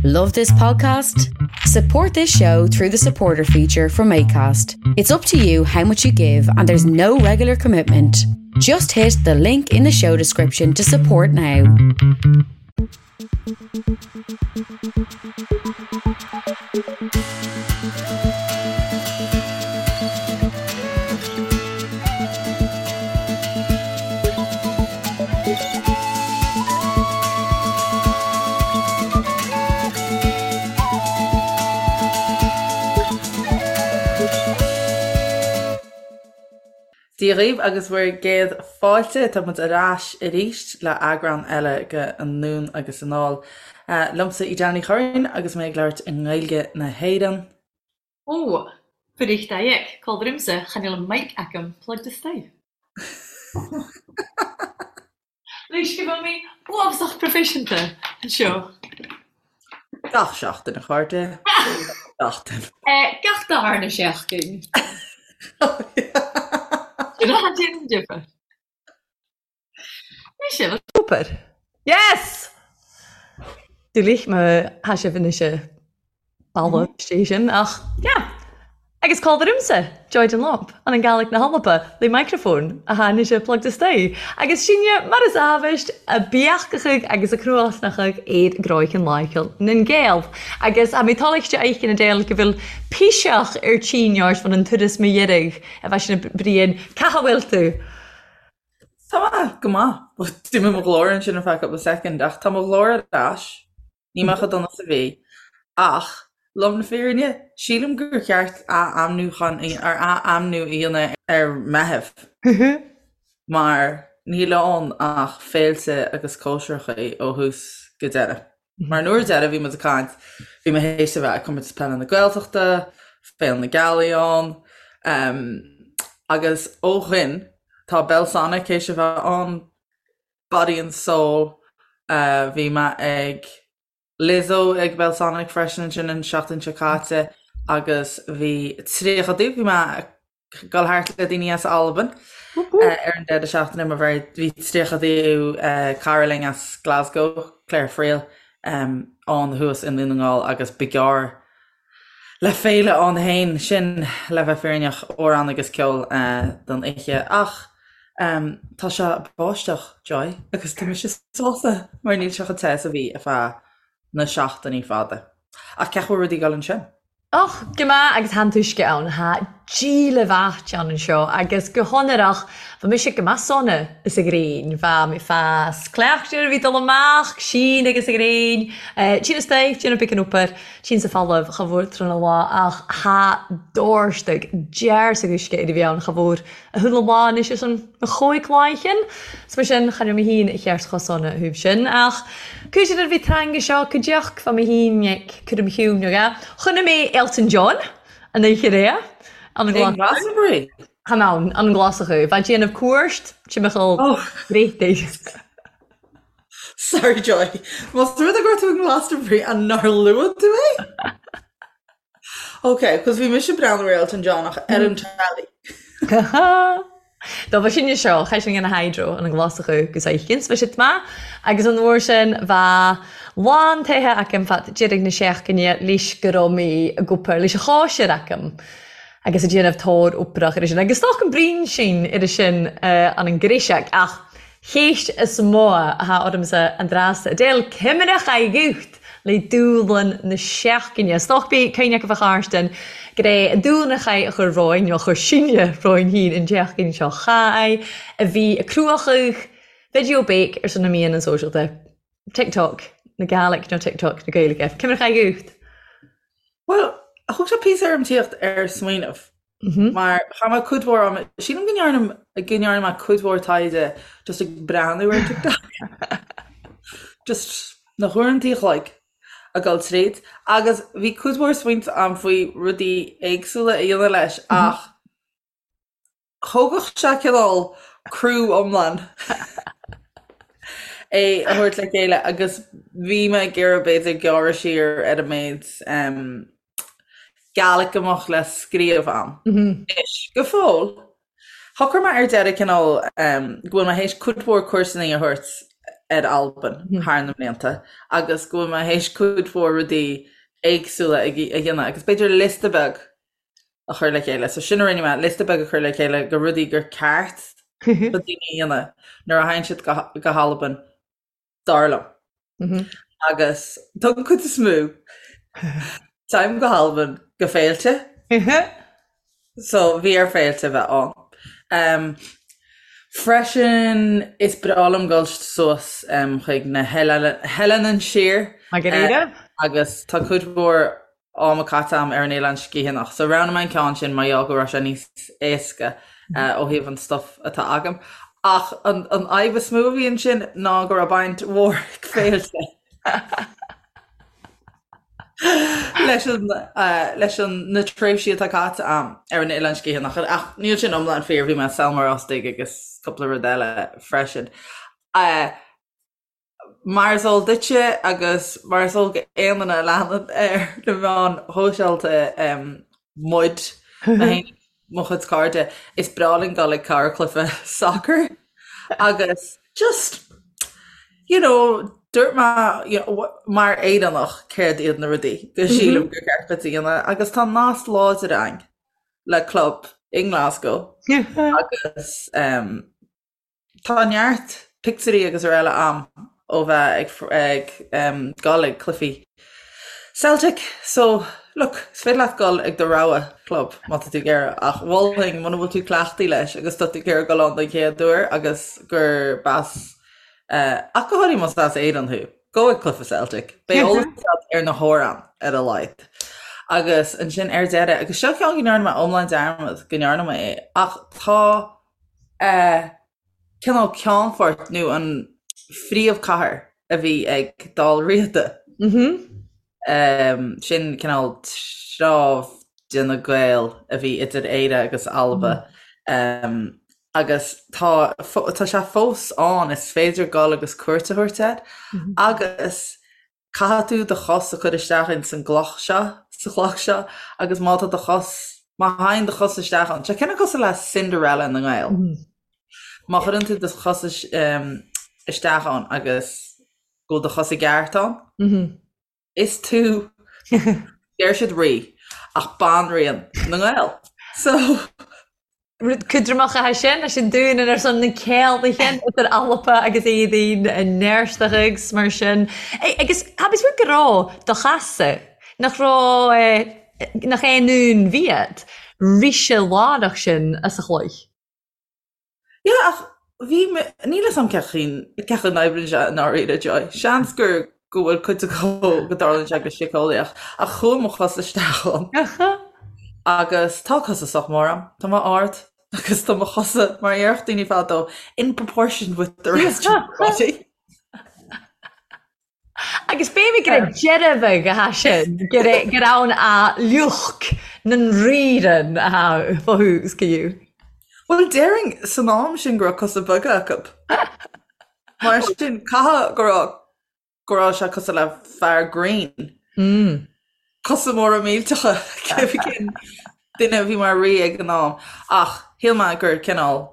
Love this podcast? Support this show through the supporter feature from ACAST. It's up to you how much you give, and there's no regular commitment. Just hit the link in the show description to support now. Dia dhaoibh agus bhur gcéad fáilte, tá muid ar ais arís le eagrán eile de Anonn agus Anall. Liomsa Edel Ní Churraoin agus mé ag labhairt i nGaeilge na hÉireann. Ó, Bericht Col rimse, chan eil an mic agam plugged isteach. Leis go bhfuil mé uafásach proifisiúnta anseo. Gach seachtain, a chairde. Seachtain. Gach darna seachtain. Sin a déanann difear. Sin. Super. Yes! Dúlich má tha sibh anois a balbh sé sin ach yeah. Agus cá bhfuilimse? Joy Dunlop, an an Gàidhlig na h-Alba, le micreafón a tha anois plugged isteach. Agus sinne, mar is amhaist, a beachachadh agus a cnuasnachadh ar gcroicheann láicheall nan Gael. Agus tha mi tòmhaichte a fheicean Edel gu bheil piseach air tinn ort bhon an turas mo dheireadh a bheith sin a Briain, Ca tha bhfuil tú? Tá mé go maith. D'imigh mo ghlór ansin ar feadh cúpla soicind ach tá mo ghlór ar ais. Níl mé chomh dona is a bhí. Ach, lom na fírinne, sílim gur cheart ath-ainmniúchán ar ath-ainmniú a dhéanamh ar Meitheamh. Mar níl ann ach féilte agus cóisireacha ó thús go deireadh. Mar an uair deireadh bhí muid ag caint, bhí mé théis a bheith ag Comórtas Peile na Gaeltachta, Féile na Gealaí ann, agus ó shin tá Belsonic théis a bheith ann, Body and Soul, bhí mé ag Lizzo ag Belsonic freisin ansin an seachtain seo caite agus bhí 30, bhí mé dul thart le daoine as Albain ar an deireadh seachtaine mar bhí 30ú cara linn as Glasgow, Claire Friel, ann thuas i nDún na nGall agus ba ghearr le féile ann féin sin le bheith fírinneach, amhráin agus ceol don oíche. Ach tá sé ag báisteach, Joy, agus tá mise sásta mar níl sé chomh te is a bhí ar feadh na seachtainí fada. Ach cén chaoi a bhfuil rudaí ag dul ansin? Och, gu math agus tha an t-uisce ann. Tha díle mhath ann anseo agus gu h-onrach bha mise gu math sona is a ghréin. Bha mi fas cleachtair a bhith dol amach, sìon agus a ghréin, tinn a-staigh, déanamh beagan obair, tinn sa phalamh cha mhór tron a lá ach tha dòrstaig dearsag uisce air a bhith ann cha mhór a h-uile lá anois air son mo chóig láichean. 'S mar sin, cha raibh mé féin cheart chomh sona thaobh sin. Ach cúis ar bhí teanga seo go deoch bha mé féin ag cur im chiúin aige. Chonaic mé Elton John an oíche aréir an an Glasachú. Glastonbury? Chan ann, an an Glasachú. Bha déanamh cuairt timcheall Oh. Bréataigh. Sorry Joy. Más rud é go raibh tú i nGlastonbury an nár luaigh tú é? Ok, cos bhí mise ag breathnú ar Elton John ach ar an telly. Do bha sinne seo, chaith sinn an hydro an Glasachú gus oichins, bha siad maith agus an uair sin bha lán tithe agam fad deiridh na seachtaine leis go raibh mé ag obair leis an chóisir agam agus ag déanamh tóir oibrach ar sin agus stoc an braon sin ar sin an an gréiseach ach Chéist is mó athá ormsa an dreas a d'fheil cuimhneach a ghuth le dúlann na seachtaine. 'S dócha bí cuimhne acu fá Charstin gur é an dúlann a chaith a chur romhainn, nó a chuir sinne romhainn féin an tseachtain seo chaith, a bhí ag cruachadh video bake ar son na meáin sóisialta, TikTok na Gàidhlig nó TikTok na Gaeilge. Cuimhneach a ghuth. Bhuel, thug sé píosa orm tíocht ar smaoineamh. Mar chaith mé cuid mhór ama, sílim go ndearna, go ndearna mé cuid mhór taighde just ag breathnú ar TikTok. Just na huaireanta a chloig ag dul tríd. Agus bhí cuid mhór smaointe agam faoi rudaí éagsúla a dhéanamh leis ach thógfadh sé cineál criú iomlán é a thabhairt le chéile agus bhí mé ag iarraidh b'fhéidir gearradh siar ar an méid Gàidhlig a mbeadh le scríobh ann. Anois, go fóill, shocraigh mé ar deireadh cineál go bhfuil mé théis cuid mhór cúrsanna a thabhairt. ar Albain thar na mblianta agus go bhfuil mé théis cuid mhór rudaí éagsúla a dhéanamh agus b'fhéidir liosta beag a chur le chéile. So sin a rinne mé, liosta beag a chur le chéile de rudaí gur ceart do daoine a dhéanamh nuair a théann siad go hAlbain, dar liom. Agus don chuid is mó, téim go hAlbain go féilte. So bhí ar féilte a bheith ann. Freisin is breá liom dul suas chuig na hEileanan Siar agus tá cuid mhór ama caite agam ar an Oileán Sgitheanach. So roghnaigh mé an ceann sin mar gheall go raibh sé níos éasca ó thaobh an stuff atá agam. Ach an fhadhb is mó a bhí ansin ná go raibh baint mhór ag féilte leis an leis an na tréimhsí atá caite agam ar an Oileán Sgitheanach. Ach níl sin iomlán fíor, bhí mé i Sabhal Mòr Ostaig agus cúpla rud eile freisin. Mar is eol duitse agus mar is eol d'aon duine a leanann ar na meáin shóisialta muid, mé féin agus mo chuid cairde, is breá linn dul ag corrchluiche sacair agus just, you know, dúirt mé, you know, mar Éireannach céard iad na rudaí go sílim gur ceart duit a dhéanamh agus tá nasc láidir againn le club i nGlasgow agus Tá neart pictiúirí agus araile a'm ó bheith ag ag dul ag cluichí Celtic so look, is féidir leat dul ag do rogha club má tá tú ag iarraidh ach mholfainn muna bhfuil tú cleachtaithe leis agus tá tú ag iarraidh dul ann don chéad uair agus gur b'as ach go háirithe más as Éirinn thú, gabh ag cluiche Celtic. Beidh eolas agat ar na hamhráin ar a laghad. Agus ansin ar deireadh, agus seo ceann go ndearna mé iomlán dearmad go ndearna mé é, ach tá cineál ceannfort nó an phríomhchathair a bhí ag Dál Riada. Sin cineál treabh de na Gaeil a bhí idir Éire agus Alba. Agus tá tá sé fós ann, is féidir dul agus cuairt a thabhairt air. Agus Caithfidh tú do chos a chur isteach ins an gcloch seo, sa chloch seo, agus má tá do chos, má théann do chos isteach ann, tá sé cineál cosúil le Cinderella na nGael. Má chuireann tú do chos isteach ann agus go bhfuil do chos i gceart ann, is tú, deir siad rí, ach banríon na nGael. So. Rud cúdramach atá sin, leis an dúnan ar son na céaldaighe idir Alba agus Éadaoin i nEirsteach agus mar sin. Agus tha mi go raibh do chasa, nach raibh, nach é nún bhiad, rise lárach sin as a chloich. Yeah, ach bhí mé, níl 'fhios a'm cén chaoi, cén chaoi a n-oibríonn sé i ndáiríre, Joy. Seans gur, go bhfuil cuid acu go dtarlaíonn sé go síceolaíoch, ach chuaigh mo chos isteach ann. Agus tá cosa sách mór a'm, tá mé ard agus tá mo chosa, mar a déarfadh daoine fadó, in proportion with the rest of my body. Agus b'fhéidir gur ag deireadh bheag atá sin, gur gur ann a lucht na nríran atá fá thús go dtí. Bhuel, déarfainn san am sin go raibh cosa beaga acu. Mar sin, caithfidh go raibh go raibh sé cosúil le fear grinn. Cosa móra millteacha, cén duine a bhí mar rí ag an am. Ach shíl mé gur cineál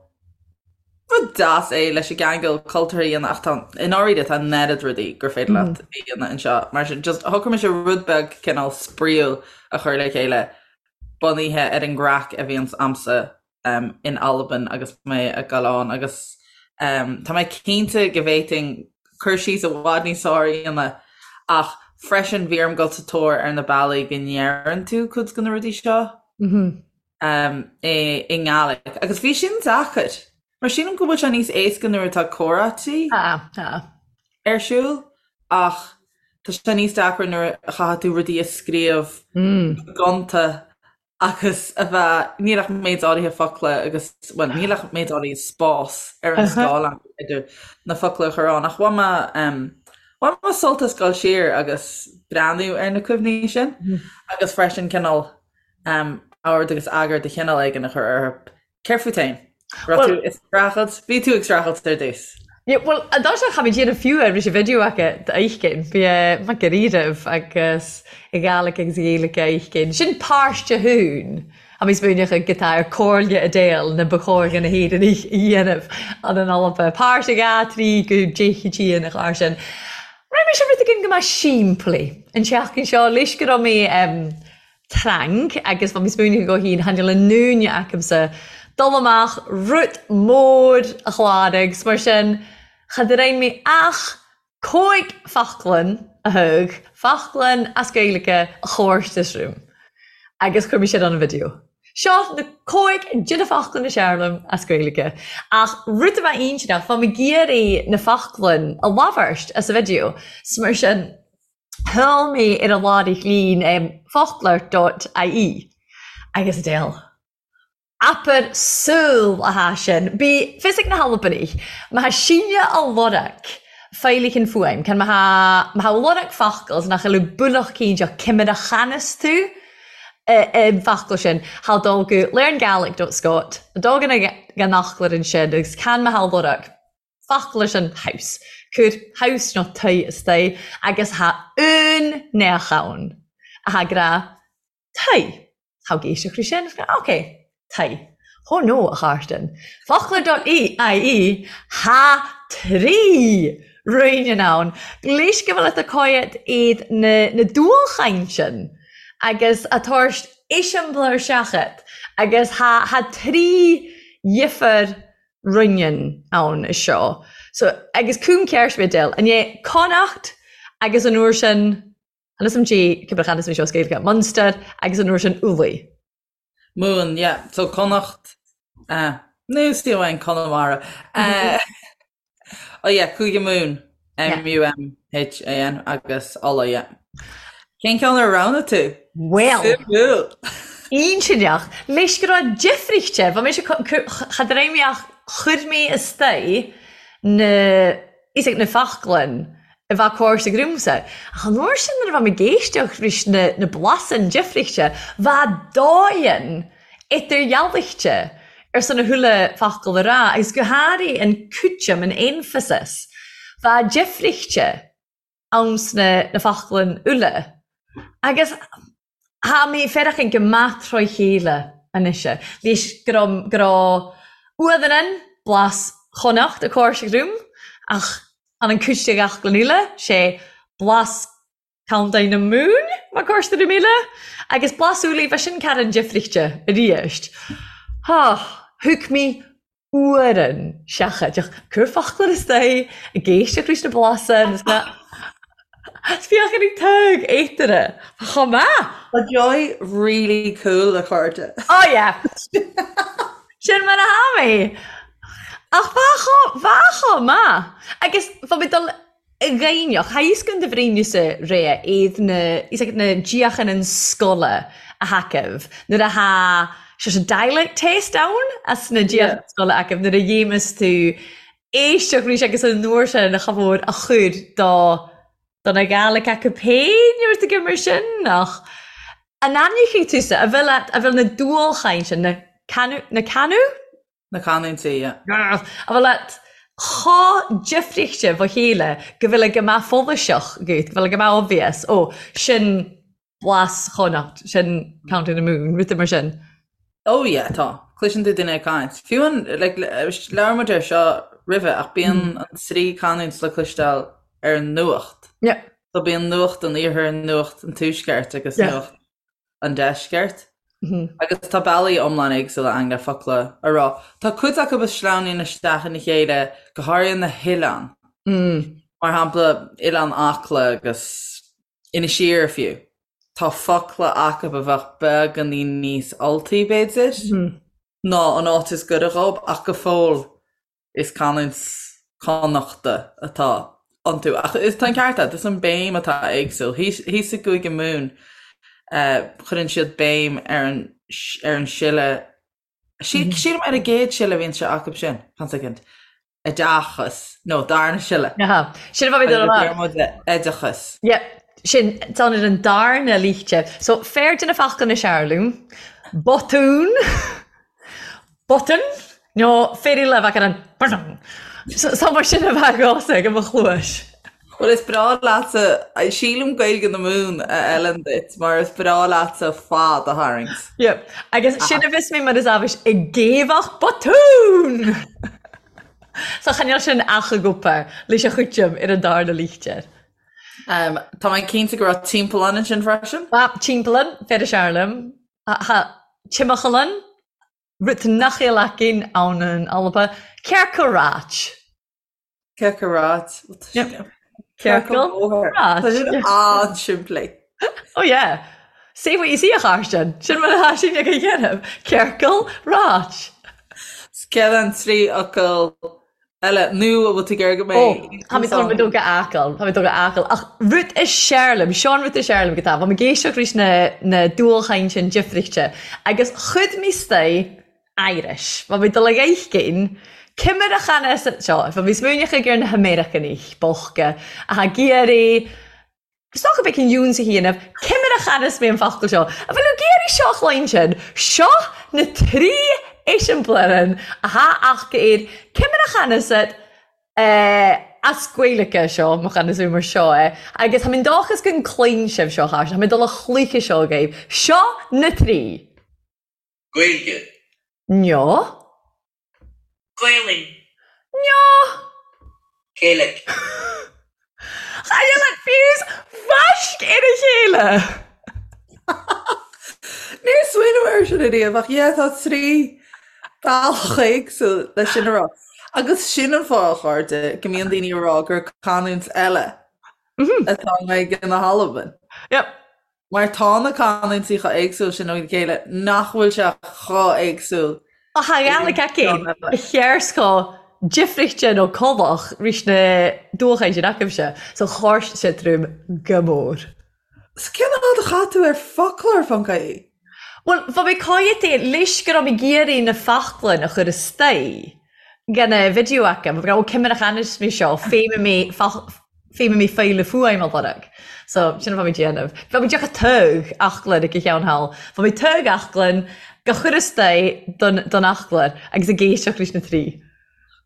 rud deas é leis an gceangal cultúrtha a dhéanamh ach tá, i ndáiríre, tá an oiread rudaí gur féidir leat a dhéanamh anseo. Mar sin, just shocraigh mise rud beag cineál spraíúil a chur le chéile bunaithe ar an gcraic a bhíonns a'msa in Albain agus mé ag dul ann agus tá mé cinnte go bhféadfainn cur síos i bhfad níos fearr a dhéanamh ach freisin bhí orm dul sa tóir ar na bealaí go ndeireann tú cuid de na rudaí seo i nGàidhlig agus bhí sin deacair mar sílim go bhfuil sé níos éasca nuair atá comhráití ar siúl ach tá sé níos deacra nuair a chaithfidh tú rudaí a scríobh go gonta agus a bheith, níl ach méid áirithe focla agus, bhuel, níl ach méid áirithe spás ar an scáileán idir na focla a chur ann, ach bhain mé, bhain mé sult as dul siar agus breathnú ar na cuimhní sin agus freisin cineál ord agus eagar de chineál éigin a chur orthu. Céard fút féin? Raibh tú ag streachailt? Bhí tú ag streachailt ar dtús. Yeah, bhuel, an dá seo cha mbeidh déanamh fiú ar ris an video aca d'fheicinn. Bhí mac ar iarraibh agus i Gàidhlig agus i Gaeilge a fheicinn. Sin páirte thún. Tha mi smaoineachadh gu tà air Comhairle Edel na ba chòir dhan na hÉireannaich a dhéanamh ann an Alba. Pàirt a dha, tri gu deich a tìon a chàir sin. Raibh mise rud éigin go maith simplí an tseachtain seo leis go raibh mé trank agus bha mi smaoineachadh go hAoine chan eil an dúine acamsa dul amach rud mór a chláraigh 's mar sin cha d-raibh mé ach còig foclan a thug foclan as Gaeilge a chòrtas rium agus chuir mé sin ann an video. Seo na còig de na foclain is fhearr liom as Gaeilge. Ach rud a bheadh intinneach, bha mi ag iarraidh na foclain a labhairt as an video, 's mar sin sheol mé ar an láithreach lín focloir dot ie agus Edel. Abair saol a tha sin. Bidh fios ag na hAlbanaich, ma tha síneadh a lorg faighlich an fuaim, can ma tha ma tha lorg focal 's nach eil builleach cinnteach ciamar a chanas tú an focal sin, tha dol gu learngaelic dot scot, dul gan an fhoclóir ansin agus can ma tha lorg focal sin house, cuir house nó tigh istigh agus tha aon neach ann a tha ag rá tigh. Tá ag éisteacht faoi sin, ok, tigh. Oh no, a Chairtin. Focloir dot ie, Tha tri ruinnean ann. Leis go bhfuil at a coiat iad na na dualchaintean agus a tabhairt eiseamláir seachat agus tha tha tri dhifear ruinnean ann is seo. So agus cúm ceart mé Edel, an é Connacht agus an uair sin Chan fhios a'm dè ciamar a chanas mé seo as Gaeilge, Munster agus an uair sin Ulaidh. Mumhan, yeah. So Connacht, eh, nó sí amháin Conamara. Eh, oh yeah, Cúige Mumhan, M-U-M-H-A-N agus Ulaidh, yeah. Cén ceann ar roghnaigh tú? Well, Suimiúil! Intinneach, leis go raibh difríocht, bha mise cha d-raibh mé ach chuir mé istigh na is ag na foclain a bheadh córas ag riumsa. Ach an uair sin nuair a bha mi ag èisteachd ris na na blasann difrichte, bha dòighean idirdhealaichte ar son a thuile focal a ràdh, agus gu hàraidh an cúiteam, an emphasis, bha difrichte ann sna na foclain uile. Agus Tha mi feireachan gu math tròi cheile a-nis, leis gu raibh, gu raibh uamhan blas Chonnacht a' còrseag rium, ach an an cuid de fhoclainn eile, 'sé blas Contae na Mumhan mar còrsa rium eile, agus blas Ulaidh, bha sin carran difrichte a-rìst. Há, thug mi uairean seachadach. Cuir foclóir istigh, ag éisteacht leis na blasanna is na féachaint ag tug éataire. Chomh maith! Tá Joy really cool a chairde. Oh yeah! Sin mar a tha mi. Ach bha chomh, bha chomh maith. Agus bha mi dul a ghaibhneach, tha fhios gun do bhraoineasa ré iad na, fhios agat na díochan an scoile a thacaibh nuair a tha sé sé dialect test ann as na díochan scoile acaibh nuair a dhéamas tú éisteacht arís agus an uair sin cha mhór a chur do do na Gaelic acu féin nó rud éigin mar sin ach an aithneochaidh tusa a bhfuil a bhfuil na dualchaint sin na canu na canu? Na canúintí, yeah. A bhfuil leat chomh difríochte fá chéile go bhfuil ag go maith follasach agat, go bhfuil ag go maith obvious, ó, sin blas Chonnacht, sin County na Mumhan, rudaí mar sin. Oh yeah, tá. Cloiseann tú duine ag caint. Fiú an, like, labhair muid air seo roimhe, ach bíonn an trí canúint le cloisteáil ar an nuacht. Yeah. So bíonn nuacht an iarthair, nuacht an tuaisceart agus Yeah. nuacht an deisceart. Agus tá bealaí iomlán éagsúla ann le focla a rá. Tá cuid acu a sleamhnaíonn isteach ina chéile, go háirithe na hoileáin. Mar shampla, Oileán Acla agus Inis Oírr fiú. Tá focla acu a bheadh beagáinín níos Ultaí, b'fhéidir, ná an áit is gaire dhób, ach go fóill Is canúint Connachta atá iontu. Ach is tá an ceart agat, is an béim atá éagsúil. Thíos i gCúige Mumhan, cuireann siad béim ar an ar an siolla, sílim ar an gcéad siolla a bhíonn sé acu sin, fan soicind, oideachas, nó darna siolla. Aha, sin a bheidh mé ag Deir muid oideachas. Yep, sin, tá ar an darna líte. So, fear de na foclainn is fhearr liom, botún, Botún nó féidir le bheith ar an botún. So mar sin a bheith agamsa ag mo chluais. Bhuel is breá leatsa, sílim Gaeilge na Mumhan a fheileann duit mar is breá leatsa fad a tharraingt. Yep. Agus sin a bhios mé mar is abhus ag géibheadh botún! So chan eil sin ach ag obair leis a chuiteam ar an darna lichtir. Tá mé cinnte go raibh timpeallán ansin freisin. Ba, timpeallán, fer a searlaim. Tha timcheallan, rud nach eil againn ann in Alba, Cearca ráit. Cearca ráit. Cearca bóthar. Tá sin an-simplí. Oh yeah. Say what you see a Chairstean. Sin mar atá sin ag an dhéanamh. Ciorcal ráit. Céard an trí fhocal eile nó an bhfuil tú ag iarraidh go mbeidh Ó, tá mé tá mé dul go Acaill, tá mé dul go Acaill. Ach rud is sear liom, seo an rud is sear liom go tá, bha mi ag éisteacht ris na na dualchaintean difrichte agus chuid mi 'staigh Irish. Bha mi dol a dh'fheiscin ciamar a channa sa seo, bha mi smaoineachadh ar na hAmeiriceanaich bochta athá ag iarraidh is dócha bheith in iúnsa a dhéanamh, ciamar a channas mé an focal seo. A bhfuil ag iarraidh seo a chluinstin? Seo na trí eiseamláireann athá aca air ciamar a channas it as Gaeilge seo, mo channas mé mar seo é, agus tha mi dòchas gun cluinn sibh seo, a chairde, tha mi dol a chluiche seo agaibh. Seo na trí. Gaeilge. Neo. Gaelainn. Neo. Gaelic. Chan eil an fiús bhaisc ar a chéile! Níor smaoinigh mé air sin ariamh ach yeah tá trí bealach éagsúil leis sin a rá. Agus sin an fáth, a chairde, go mbíonn daoine ag rá gur canúint eile atá i nGaeilge na hAlban. Yep. Mar tá na canúintí chomh éagsúil sin óna chéile nach bhfuil sé chomh éagsúil. Ach tha Gàidhlig againn a chears chomh difrichte nó colach ris na dualchaidh sin agaibhse, so chàirst sé trum go mór. So cén fhad a chaith tú ar foclóir ponc ie? Bhuel, bha mi còimheadta leis gur raibh mi ag iarraidh na foclain a chur astoigh gan a video agam, bha mi ag ràdh, ó ciamar a channas mi seo, feidhme mi Feidhme mé file fuaim a lorg. So, sin a bha mi déanamh. Bha mi deoch a togh aclainn ag a cheann thall. Bha mi togh aclainn go chur istoigh don don aclair agus ag éisteacht leis na trí.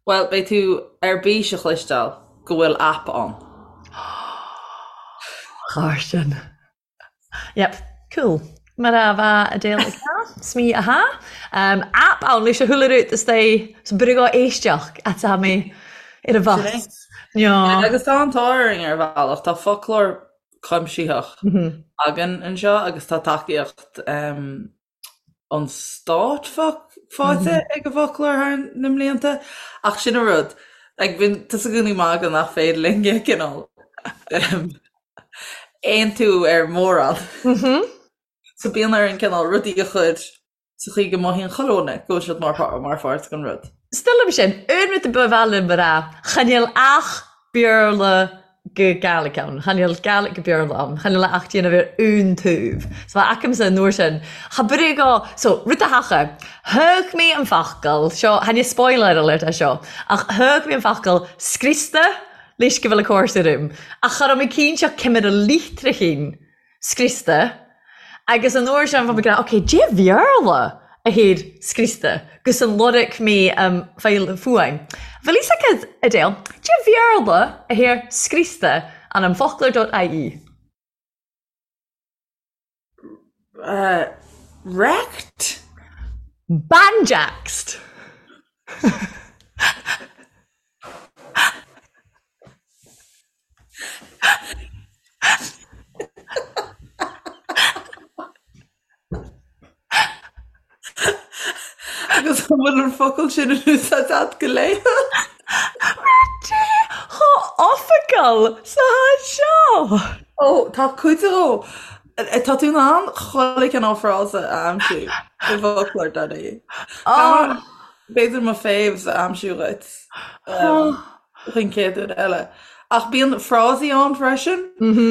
Bhuel, beidh tú ar bís a chloisteáil go bhfuil aip ann. Chàirdean. Yep, cool. Mar a bha Adele ag ràdh, 's mi a tha. Um, app ann leis a chuile rud is é so b'fhearr go éisteacht atá mé ar an bhus. Sin é. Agus tá an t-ádh orainn ar bhealach, tá foclóir cuimsitheach againn anseo agus tá tacaíocht um, an stáit faighte ag an bhfoclóir thar na mblianta, ach sin an rud, like bíonn tusa i gcónaí ag magadh nach féidir linn cineál aontú ar mhórán. So bíonn orainn cineál rudaí a chur sa chaoi go mothaíonn chuile dhuine go bhfuil siad mar pháirt den rud. 'S dóigh liom sin, aon rud a ba mhaith liom a rá, chan eil ach Beurla go Gàidhlig ann, chan eil Gàidhlig go Beurla ann, chan eil ach déanamh ar aon taobh. So bha agamsa an uair sin, cha brí go, so, rud a thacha, thug mé an focal, seo, chan e spoiler alert é seo, ach thug mé an focal scriosta leis go bhfuil a cóir orm, ach cha raibh mé cinnte ciamar a litreachan scriosta agus an uair sin bha mi ag ràdh ok dè Bheurla a thair scriosta gus an lorg mi am file fuaim. Bhfuil fhios agat, Adele, dè Bheurla a thair scriosta an am foclóir dot ie? Uh, wrecked? Banjaxed! Agus an bhfuil an focal sin in úsáid agat go laethúil? Dé chomh oifigiúil sa háit seo! Ó, tá cuid dhó. Tá tú in ann chuile chineál frása a aimsiú i bhfoclóir dot ie. B'fhéidir mo faves a aimsiú dhuit chuig an chéad uair eile. Ach bíonn frásaí ann freisin,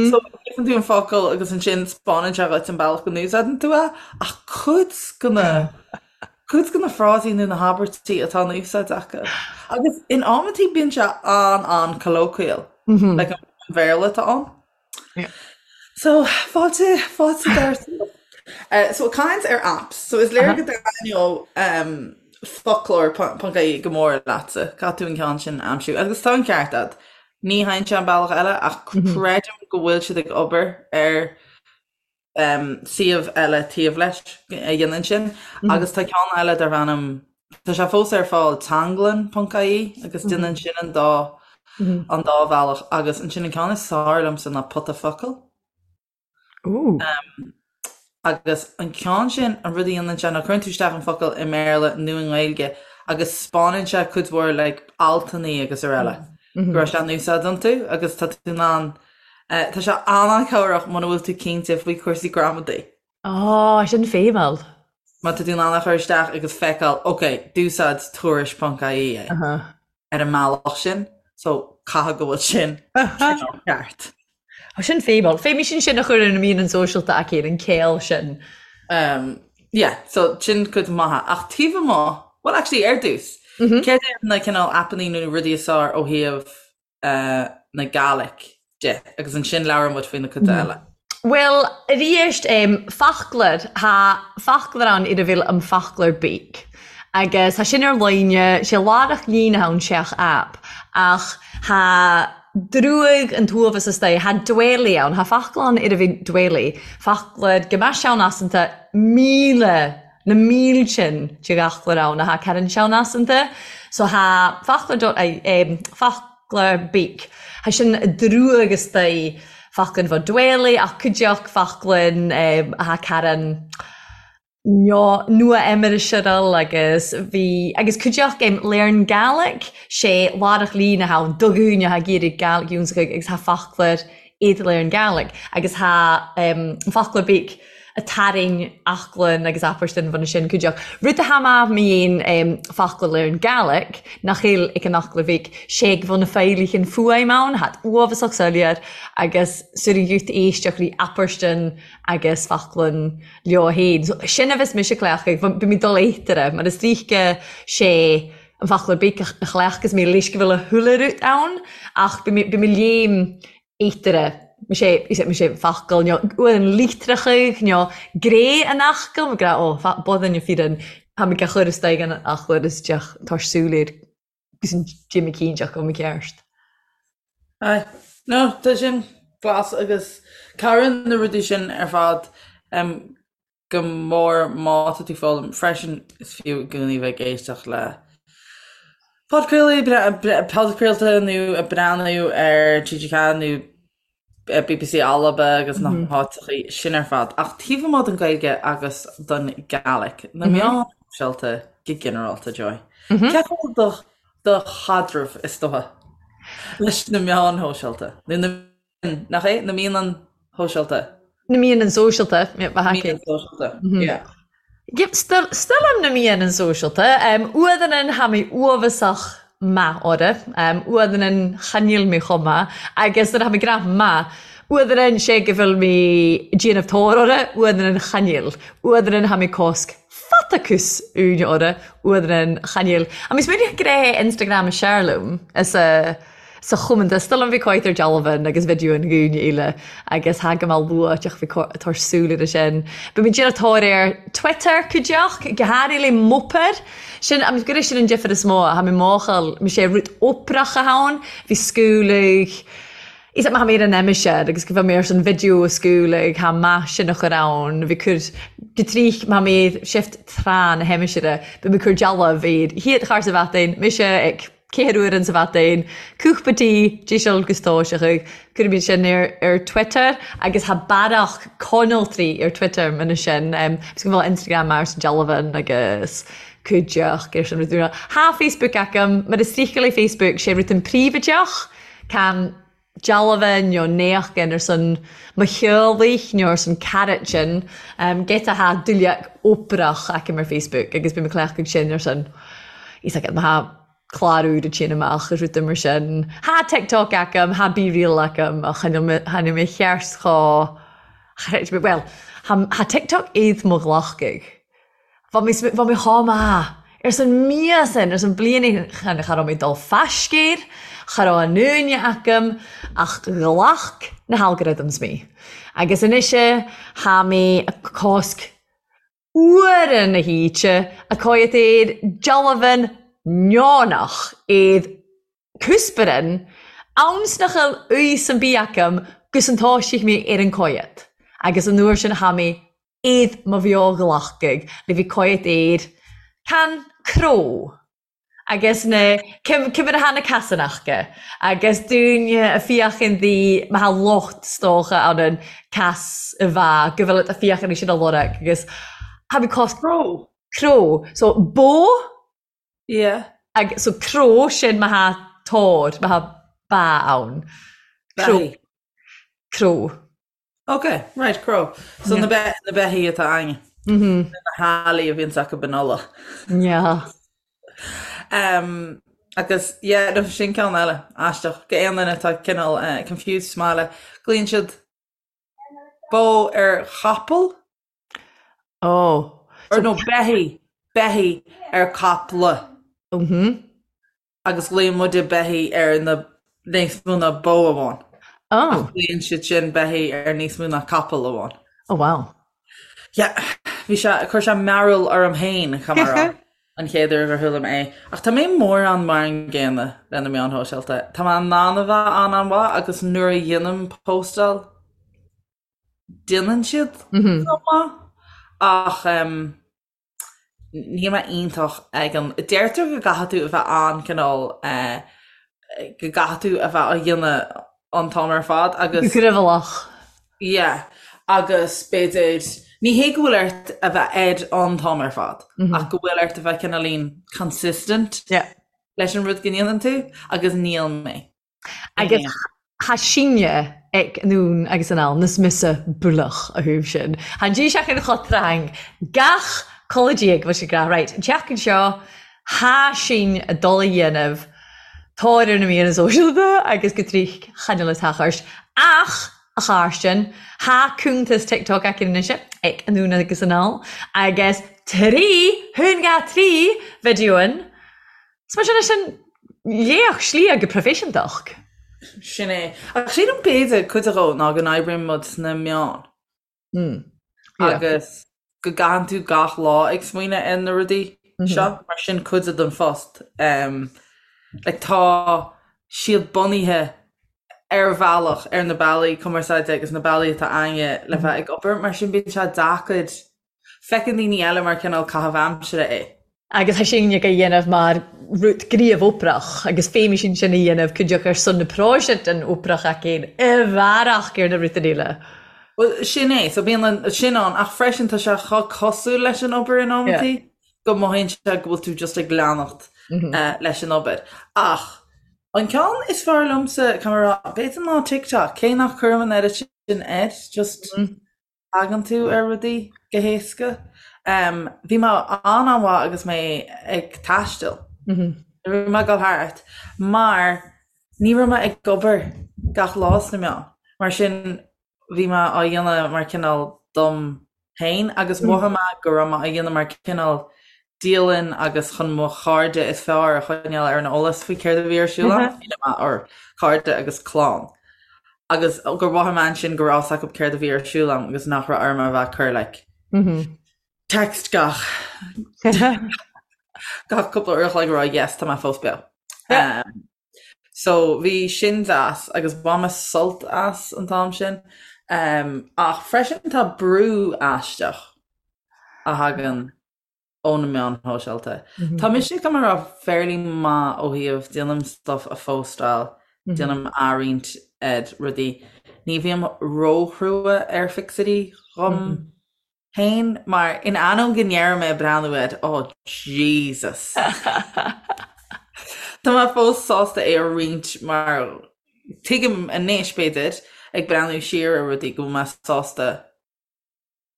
so léifeann tú an focal agus ansin spáineann sé dhuit an bealach go n-úsáideann tú é, ach cuid de na cuid de na frásaí nó na habairtí atá in úsáid acu. Agus in amantaí bíonn sé an-an-colloquial, like an Bhéarla atá ann. So, fáilte, fáilte dar uh, So caint ar apps, so is léir go dtaitneodh um, foclóir ponc ie go mór leatsa, caithfidh tú an ceann sin a aimsiú. Agus tá an ceart agat. Ní théann sé an bealach eile ach creidim go bhfuil siad ag obair ar suíomh eile taobh leis a dhéanann sin agus tá ceann eile darb ainm, tá sé fós ar fáil, teanglann ponc ie agus déanann sin an dá an dá bhealach agus ansin an ceann is fearr liomsa ná Pota Focal. Ooh. Agus an ceann sin, an rud a dhéanann sé ná cuireann tú isteach an focal i mBéarla nó i nGaeilge agus spáineann sé cuid mhór like altannaí agus araile go raibh sé in úsáid iontu agus tá tú in ann, tá sé an-an-chabhrach muna bhfuil tú cinnte faoi chúrsaí gramadaí. Á, sin feidhmiúil. Má tá tú in ann a chur isteach agus feiceáil, ok, d'úsáid tuairisc ponc ie é. ar an mbealach sin so caithfidh go bhfuil sin cineál ceart. Tá sin feidhmiúil. Feidhmí sin sin a chur ar na meáin sóisialta aici ar an céill sin. Um, yeah, so sin cuid maithe. Ach taobh amuigh, well actually ar dtús, mm -hmm. céard iad na cineál aipeanna nó rudaí is fearr ó thaobh uh, na Gaelic de agus ansin labhróidh muid faoi na cuid eile. Bhuel, arís, foclóir, tha foclóir ann ar a bhfuil Am Foclóir Beag. Agus tha sin ar line, sé laireach líne ann seach aip, ach tha druag an t-uabhas astoigh, tha dwelly ann, tha foclóir ann ar a bhfuil dwelly, foclóir go mbeadh sean-asanta 1000, na míltin de fhoclóir ann a tha ceann sean-asanta. So tha foclóir dot, foc. Foclóir Beag. Tha sin druag astoigh foclainn bho dwelly ach cuideachd foclainn a tha caran nua-aimseartha agus bhí agus cuideachd Learn Gaelic sé laireach líne atha ann do dhaoine atha ag iarraidh Gaelic ionnsachaidh agus tha foclóir iad Learn Gaelic agus tha Foclóir Beag a tarraing aclann agus apairtin bhuna sin cuideachd. Rud a tha math mi dhein foclóir Learn Gaelic nach eil ag an Fhoclóir Bhig sé go bhfuil na feidhlighean fuaim ann, thad uabhasach soiléir agus sur an ghiúta éisteach rí apairtin agus foclann leo fhéin. So, sin a bhios mise cleachtadh, bhí mé dul éitire, mar is ríce sé an Foclóir Big a chleachtadh mé leis go bhfuil a thuilleadh rud ann ach bhí mé léim éitire, sé, sé focal nó uaireann litreacha nó gré an fhocail, mar gra, ó, bodann na fíreann, tá mé ag chur isteach an fhoclóir isteach tá súil air agus an Jimmy cinnteach go mceart. Aye. No, tá sin glas agus cabhraíonn na rudaí sin ar fad go mór má tá tú ag foghlaim. Freisin, is fiú i gcónaí bheith ag éisteacht le podchraoltaí, podchraolta nó ag breathnú ar TG4 nó BBC Alba agus na háiteachaí sin ar fad. Ach taobh amuigh den Ghaeilge agus den Gaelic, na meáin shóisialta go ginearálta, Joy. Cé chomh do do chaidreamh is dócha leis na meáin shóisialta? Nó na Nach é? Na meáin shóisialta. Na meáin sóisialta, yeah, ba haicé. Meáin sóisialta, yeah. Yep, still, still am na meáin sóisialta. Um, uaireanna tha mi uabhasach math orra. Um, uaireanna chan eil mi chomh math. Agus nuair a tha mi gnath math, uaireanna sé go bhfuil mi déanamh tóir orra, uaireanna chan eil. Uaireanna tha mi cosc fatacus úine orra, uaireanna chan eil. A mi smaoineach gré Instagram a Sherloom, is a sa chomanda still an bhí coit ar dealbhan agus video an dhúine eile agus tha go maith luath deoch bhí tar súil ar sin. Ba mé déanamh tóir ar Twitter cuideach, go háirithe le mopair. Sin am gur sin an difear is mó tha mé máchail mi sé rud oprach a ann, bhí scúlaigh Is maith mé ar an aimsir agus go bhfuil mé ar son video a scúlaigh tha maith sin a chur ann, bhí cur go trích maith mé shift tráth na haimsire, bhí mé cur dealbh ar hiad char sa bhatain, mise ag Céad uair in sa bhatain, cúpla tí, díseal gus tóiseach, cuirimid sin ar ar Twitter agus tha bearach conaltraí ar Twitter mana sin, agus go bhfuil Instagram mar san dealbhan agus cuideach ar sin rud úr. Tha Facebook agam, mar is rícheall é Facebook, sé rud an príobhaideach, can dealbhan nó néachgan ar son mo theaghlaigh nó ar son carad sin, giota tha duilleach oprach agam ar Facebook agus bím ag cleachtadh sin ar son, is agam, tha clár úr ag téann amach is rudaí mar sin. Tha TikTok agam, tha BeReal agam ach chan eil mé cheart chomh, bhuel, tha TikTok iad mo ghlacadh. Bha mi bha mi chomh maith ars an míosain, ars an bliain chan cha raibh mé dul faiscéir, cha raibh an uaine agam ach ghlac na halgorithms mé. Agus anois tha mé ag cosc uaire na hoíche a coiat air dealbhan neonach iad cusparin. Ann 's nach eil fhios an bith agam gus an toisigh mé ar an coigead agus an uair sin tha mé id mo bheo-ghlacadh le bhith coigead air can cró agus na cimire tha na casanachga agus dúinne a fiachan di ma tha lucht 's dócha ann an cas a bha go bhfuil a fiachan sin a lorg agus tha mé cos Cró. cró so bó Yeah. Ag, so cró sin ma tha tor, ma tha ba ann. Cró. Beithí. Cró. Ok, right, cró. So na, be, na beithí atá againne. Mm -hmm. Na healaí a bhíonns acu in Uladh. Yeah. Um, agus, yeah, no, sin ceann eile, aisteach. Go aon duine atá cineál uh, confused sa mbaile. Glaonn siad bó ar chapall? Oh. Or no, beithí, beithí ar caiple. Mhm. Agus glaonn muide beithí ar na níos mó ná bó amháin. Oh. Ach glaonn siad sin beithí ar níos mó ná capall amháin. Oh wow. Yeah, bhí sé, chuir sé mearbhall orm féin, caithfidh mé a rá, an chéad uair gur chuala mé é. Ach tá mé mórán mar an gcéanna le na meáin shóisialta. Tá mé in ann a bheith an-an-mhaith agus nuair a dhéanaim póstáil, déanann siad go maith ach níl mé iontach ag an, deirtear go gcaithfidh tú a bheith an-cineál go gcaithfidh tú a bheith á dhéanamh an t-am ar fad agus. Gníomhach. Yeah agus b'fhéidir, ní hé go bhfuil ort a bheith air an t-am ar fad ach go bhfuil ort a bheith cineáilín consistent leis an rud go ndéanann tú agus níl mé. Agus tha sinne ag anonn agus anall nas mise bualach a thaobh sin. Tha an dís achainn cho trang gach codladh diaidh bhfuil sé ag rá right an tseachtain seo tha sinn a dul a dhéanamh tóir ar na míreanna sóisialta agus go trích chan eil a tachairt ach a Chàrstein tha cuntas TikTok againn anois ag anonn agus anall agus trí thún 3 video-an 's mar sin é sin léach slí go proifisiúntach. Sin é. Ach sílim b'fhéidir cuid dhó ná go n-oibríonn muid sna meáin. Agus go gcaitheann tú gach lá ag smaoineamh ar na rudaí seo, mar sin cuid den phost. Like tá siad bunaithe ar bhealach ar na bealaí cumarsáide agus na bealaí atá againne le bheith ag obair, mar sin bíonn sé deacair Feiceann daoine eile mar cineál caitheamh aimsire é. Agus tha sinne ag a dhéanamh mar rud gníomh-obrach, agus feumaidh sinn sin a dhéanamh cuideachd ar son na próiseas den obrach againn i bhfearach ar na rudain eile. Bhuel, sin é. So bíonn an, sin ann, ach freisin tá sé chomh cosúil leis an obair in amantaí go mothaíonn sé go bhfuil tú just ag leanacht leis an obair. Ach an ceann is fearr liomsa, caithfidh mé a rá, b'fhéidir ná TikTok, cé nach cuirim an oiread sin air, just tagann tú ar rudaí go héasca. Bhí mé an-an-mhaith agus mé ag taisteal. Bhí mé ag dul thart mar ní raibh mé ag obair gach lá sna meáin. Mar sin bhí mé á dhéanamh mar cineál dom féin agus mhothaigh mé go raibh mé á dhéanamh mar cineál dialann agus chun mo chairde is fearr a choinneáil ar an eolas faoi céard a bhí ar siúl agam, you know, or cairde agus clann. Agus gur mhothaigh mé ansin go raibh a fhios acu céard a bhí ar siúl agam agus nach raibh orm a bheith ag cur like text gach gach cúpla uair a chloig a rá yes tá mé fós beo. Um, so bhí sin deas agus bhain mé sult as an t-am sin. Um, ach freisin tá brú aisteach a thagann ó na meáin shóisialta. Tá mise caithfidh mé a rá fairly maith ó thaobh déanaim stuff a phóstáil, déanaim athroinnt ar rudaí. Ní bhím róchrua ar phictiúirí dhom féin mar in ainneoin go ndeirim ag breathnú air oh Jesus! Tá mé fós sásta é a roinnt mar tuigim anois b'fhéidir ag breathnú siar ar rudaí go bhfuil mé sásta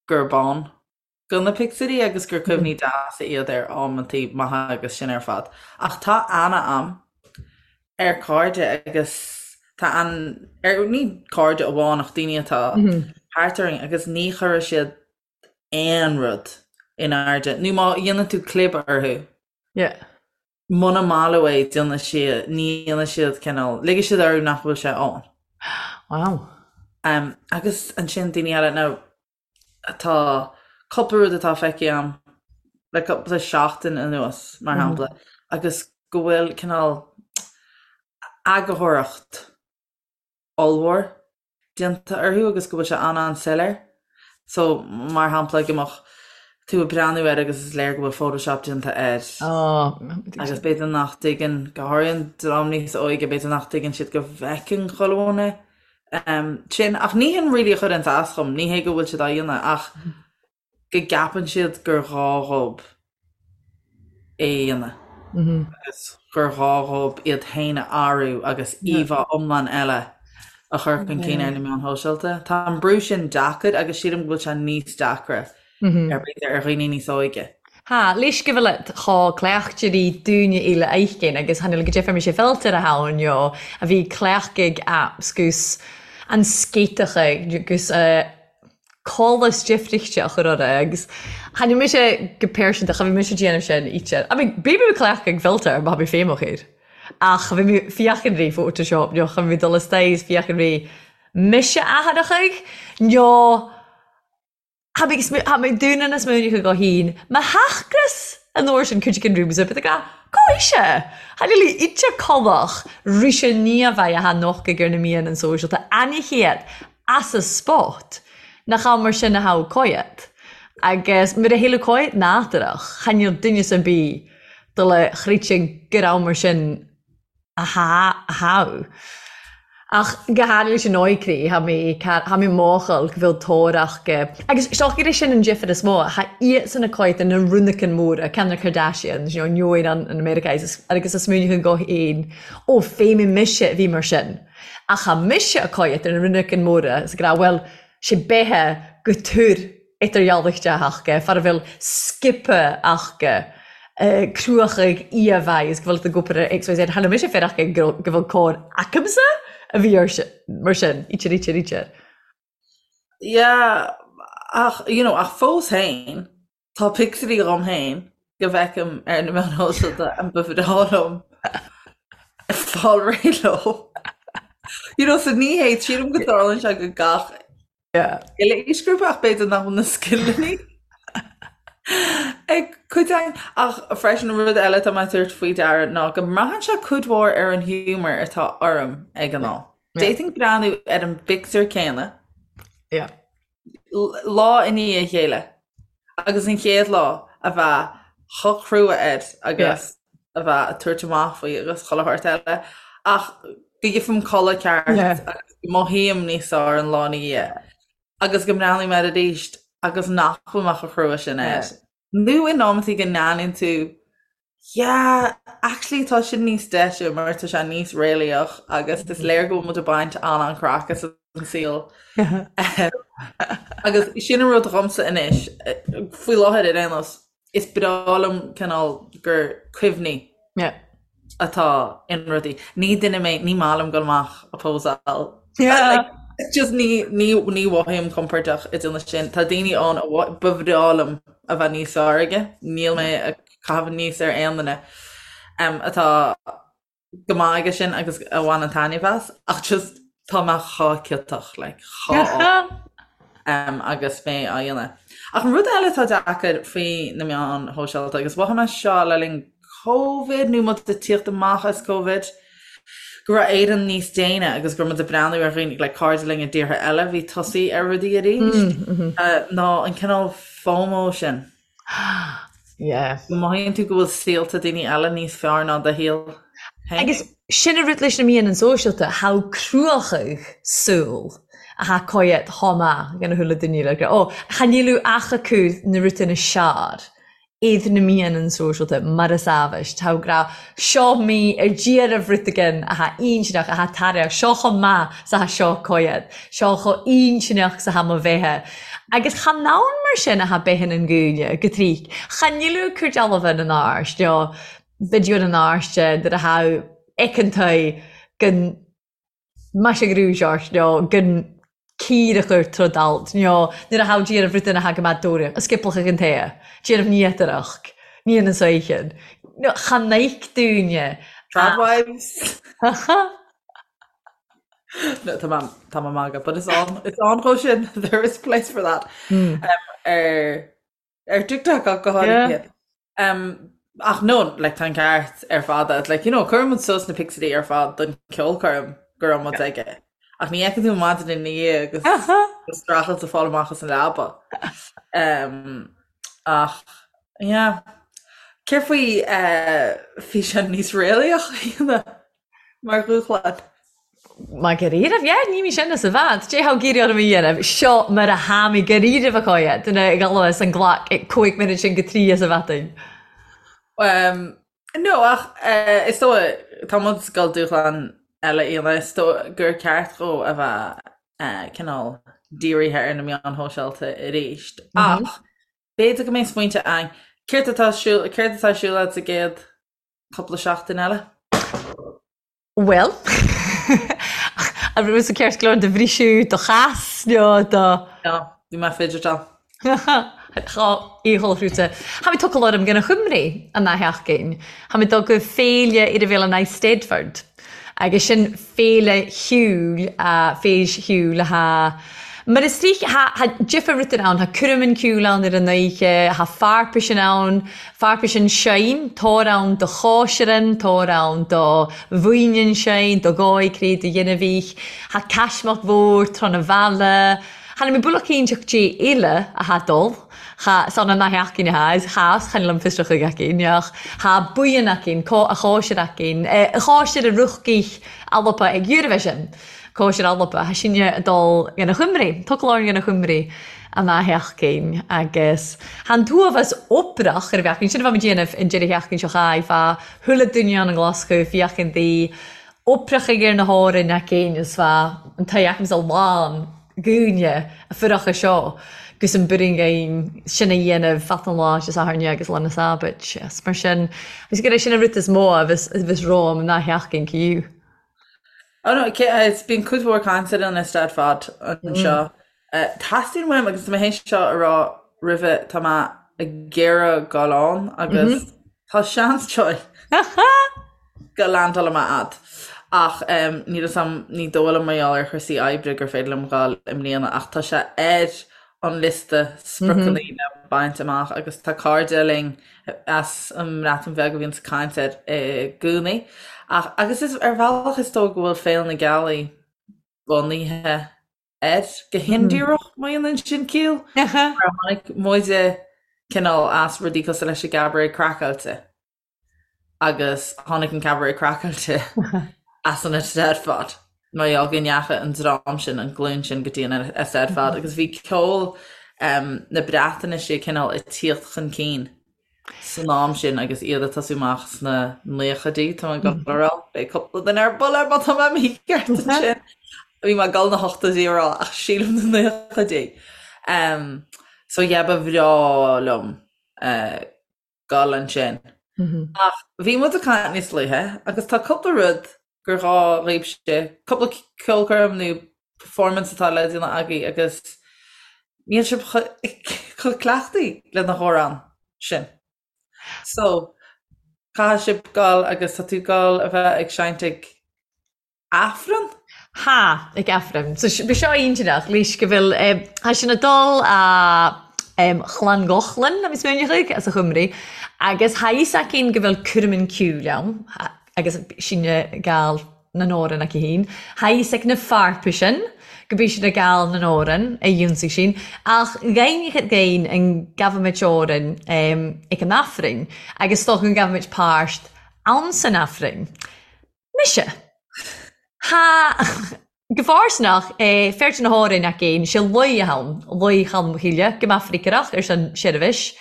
gurb ann do na pictiúirí agus gur cuimhní deasa iad ar amantaí maithe agus sin ar fad. Ach tá aithne a'm ar cairde agus tá an, ar, ní cairde amháin ach daoine atá thart orainn agus ní chuirfidh siad aon rud in airde nó má dhéanann tú clib orthu, Yeah. muna maith leo é déanfaidh siad, ní dhéanfaidh siad cineál, ligfidh siad orthu nach bhfuil sé ann. Wow. Um, agus ansin daoine eile, now, Tá cúpla rud atá feicthe agam le cúpla seachtain anuas, mar shampla, agus go bhfuil cineál. eagarthóireacht ollmhór déanta orthu agus go bhfuil sé an-an-soiléir. So, mar shampla, go mbeadh tú ag breathnú air agus is léir go bhfuil Photoshop déanta air. Agus b'fhéidir nach dtuigeann, go háirithe an dream níos óige, b'fhéidir nach dtuigeann siad go bhfeiceann chuile dhuine sin. Ach ní hin really a chuireanns as dhom, ní hé go bhfuil siad á dhéanamh ach go gceapann siad gur ghá dhób é a dhéanamh agus gur ghá dhób iad féin a athrú agus íomhá iomlán eile a chur chun cinn ar na meáin shóisialta. Tá an brú sin deacair agus sílim go bhfuil sé níos deacra ar b'fhéidir ar dhaoine níos óige. Tha, leis gu bheil it tha cleachd-irí dúinne eile aithin agus tha níl go deifir mise filter a tha ann a bhith cleachdaig apps gus an scéiteacha gus a colas deifrichte a chur orra agus tha níl mise go pearsanta cha bhí mise ag déanamh sin íte. I mean bhí mé cleachdaig filter má tha mé feidhmeach air ach cha bhí mé féachaint ri Photoshop nó cha bhí mé dul istoigh is féachaint ri mise athaireachaidh nó tha mé tha mé dúnadh na smaoineacha go hín mo theachgras an uair sin cuid den rooms but ag Cá ise? Tha níl íte colach rise ní a bheidh a tha nochtaidh ar na meadhanan sóisialta aine chéad as a spot nach am mar sin a tha coiat. Agus mura théileadh coiat nádúrach, cha níl duine ar bith do le chreidte gur am mar sin a tha a tha. Ach go háirithe leis an óigcrí, tha mé tha mé mòchal go bhfuil tóir aca. Agus 's dòcha gur é sin an difir is mó, tha iadsan a' coiat na runaicean mòra, ceann na Kardashians, you know, neoin an an America agus a smaoineachan go h-aon, ó fé mise a bhí mar sin. Ach tha mise a' coiat ar na runaicean mòra 's ag ràdh bhuel, 'sé beithe gu tur idirdhealaichte aca, far a bheil sciobtha aca, cruachaidh íomhá is go bhfuil tú ag obair ar XYZ. Tha mise féir aca go bhfuil cóir acamsa a bhí ar mar sin, ítear, ítear, ítear. Yeah, ach, you know, ach fós féin, Tá pictiúirí dhom féin go bhfeicim ar na meáin shóisialta and ba bhreá liom fáil réidh leo. You know, so ní hé, sílim go dtarlaíonn sé go gach uile aoisghrúpa ach b'fhéidir nach bhfuil na scileanna ag cuid againn. Ach freisin rud eile atá mé ag tabhairt faoi deara ná go mbraitheann sé cuid mhór ar an humour atá orm ag an am. D'fhéadfainn breathnú ar an bpictiúr céanna lá i ndiaidh a chéile agus an chéad lá a bheith chomh crua air agus a bheith ag tabhairt amach faoi agus chuile shórt eile ach go gheibhim codladh ceart agus go mothaím níos fearr an lá ina dhiaidh agus go mbreathnaím air arís agus nach bhfuil mé chomh crua sin air. Nó in amantaí go ndéanann tú Yeah, actually tá sin níos deise mar tá sé níos réalaíoch agus is léir go bhfuil muid ag baint an-an-craic as an saol. Agus sin an rud dhomsa anois, faoi láthair ar aon nós, is breá liom cineál gur cuimhní atá in rudaí. Ní duine mé, ní maith liom dul amach a pósáil. Yeah. Just ní ní ní mhothaím compordach ag déanamh sin. Tá daoine ann a ba bhreá liom a bheith níos fearr aige. Níl mé ag caitheamh aníos ar aon duine atá go maith aige sin agus a bhaineann taitneamh as ach just tá mé chomh ciotach like chomh agus mé á dhéanamh. Ach an rud eile atá deacair faoi na meáin shóisialta agus mhothaigh mé seo le linn Covid nó muid ag tíocht amach as Covid, go raibh Éirinn níos déine agus go raibh muid ag breathnú ar dhaoine like cairde linn i dtíortha eile a bhí tosaithe ar rudaí arís ná an cineál FOMO sin. Yeah. Go mothaíonn tú go bhfuil saolta daoine eile níos fearr ná do shaol féin. Agus sin an rud leis na meadhanan sóisialta, tha cruachadh súl a tha coiat chomh maith gan a thuilleadh duine le ó, cha níl ach acu na rudaí na sear. iad na meadhanan sóisialta mar is amhais. Tá grá seo mí ar d'iarraidh rud again atá intinneach, atá tairbheach, seo chomh maith 's atá seo coiad, seo chomh intinneach 's atá mo bheithe. Agus chan ann mar sin atá beithe an gúine, go tríc. Cha níl cur dealbha na n-áirt, nó video na n-áirte, nuair atá eiceantaí gan Maise grúis ort nó gan cíor a chur trod alt nó nuair a thabh déanamh rud ina thagadh mad dóire, a sciplach ag an tae, déanamh níotarach, ní an saoithin. Nó cha n-oic dúinne. Tradwives. No, tá mé tá mé magadh, but it's on it's on chomh sin there is place for that. Um, ar ar TikTok ach go háirithe. Um. Ach no, like, tá an ceart ar fad agat. Like, you know, cuireann muid suas na pictiúirí ar fad don ceolchoirm go raibh muid aige. Ach ní fheiceann tú maidin ina dhiaidh agus go streachailt ag fáil amach as an leaba. Um, ach, yeah. Céard faoi uh, físeán níos réalaíoch a dhéanamh mar dhúshlán? Mar dháiríribh, yeah, ní mí sin as a bhfad. Dé thá ag iarraidh orm a dhéanamh, seo mar a tha mi dháiríribh a choidhe, duine ag dul as an glac ag 15 muinud sin go 3 as a bhfeadainn. Um, no, ach uh, is dóigh, tá muid ag dul dúshlán eile a dhéanamh, is dóigh gur ceart dhó a bheith uh, cineál dírithe ar na meáin shóisialta arís. Mm -hmm. Ach b'fhéidir go mbeidh smaointe againn. Céard atá siúl, céard atá siúl agat sa gcéad cúpla seachtain eile? Bhuel, an raibh tusa ceart go leor do bhriseadh do chas nó do. No, bhí mé fidgetáil. Tá íochal hrúite. Tha mi tocal orm gan a Chymru an dá sheachtain. Tha mi dul go féile ar a bhéal an Eisteddfod. Agus sin féile shiúil, féis shiúil atá Mar is dóich, tha difear rudair ann, tha cuirm an ciúil ann ar an oíche, tha fearpaisean ann, fearpaisean seinn, táir ann do chóisirean, táir ann do mhaoinean seinn, do dhóigh cré do ghinmhích, tha caismeach mhór tráth na bhaile, tha na mé bualach cinnteach dé uile a tha dul, tha san an nath eachainn a tha, is chas chan liom fiosrach chuig eachainn, ach tha buíon eachainn, có a chóisir eachainn, a chóisir a ruchgaích alpa ag Eurovision. Cóisir Alba, tha sinne a' dol dhan a Chuimri, tocal orainn dhan a Chuimri an dá sheachtain agus tha an t-uathbhas obrach ar a bheachtain, sin a bheimid dhéanamh an deireadh sheachtain seo chaith, bha chuile duine ann i nGlaschú, fiachain daoi oipreachaidh ar na hÓrainn againn is bha an t-aghaidh agamsa lán dhaoine a fuireacha seo gus an buirinn againn sin a dhéanamh fat an lá Dé Sathairn agus lá na Sábait is mar sin, is gur é sin an rud is mó a bheas romham an dá sheachtain ciú. Oh no, is bíonn cuid mhór cainte ar an Eisteddfod anseo. Teastaíonn uaim, agus tá mé théis seo a rá roimhe, tá mé ag iarraidh dul ann agus tá seans joy go landáilfidh mé a'd. Ach níl fhios a'm, ní dóigh liom mar gheall ar chúrsaí oibre gur féidir liom dhul i mbliana ach tá sé ar an liosta spriocanna le baint amach agus tá cairde linn as an mBreatain Bheag a bhíonns ag caint air i gcónaí. Ach, agus is ar bhealach is dóigh go bhfuil Féile na Gealaí bunaithe air go hindíreach, má dhéanann sin ciall, mar tháinig muide cineál as rudaí cosúil leis an gCabaret Craiceáilte agus tháinig an Cabaret Craiceáilte as an Eisteddfod mar gheall go ndeachaigh an dream sin, an glúin sin go dtí an Eisteddfod agus bhí ceol na Breatnaise cineál ag tíocht chun cinn san am sin agus iad ag tosú amach sna naochaidí, tá mé ag dul a rá, beidh cúpla duine ar buile má tá mé mícheart ansin. Bhí mé ag dul na hochtóidí a rá ach sílim na naochaidí. So yeah, ba bhreá liom dul ansin. Ach bhí muid ag caint níos luaithe agus tá cúpla rud gur ghá dhaoibhse, cúpla ceolchoirm nó performance atá le déanamh agaibh agus níl sibh chomh cleachtaí le na hamhráin sin. So, caithfidh sibh dul agus tá tú dul a bheith ag seinnt ag Aifreann? Tha, ag Aifreann. So bhí seo iontach, leis go bhfuil, tha sinn a' dol a Llangollen, tha mi smaoineachadh, as a Chymru, agus tha fhios againn go bhfuil cuirmin ceoil ann, agus sinne ag gabhail nan òran aici fhìn. Tha fhios ag na fearpaisean go bith siad ag gabhail nan òran a dh'ionsaigh sinn, ach dh'aithneochadh againn an gabhaimid òrainn ag an Aifreann, agus 's dócha go ngabhaimid pàirt ann san Aifreann. Mise. Tha. Go fàirsteanach, feird na h-òrain againn, 's e laoi a th' ann, Laoi Cholm Chille, gu math freagrach air son seirbhis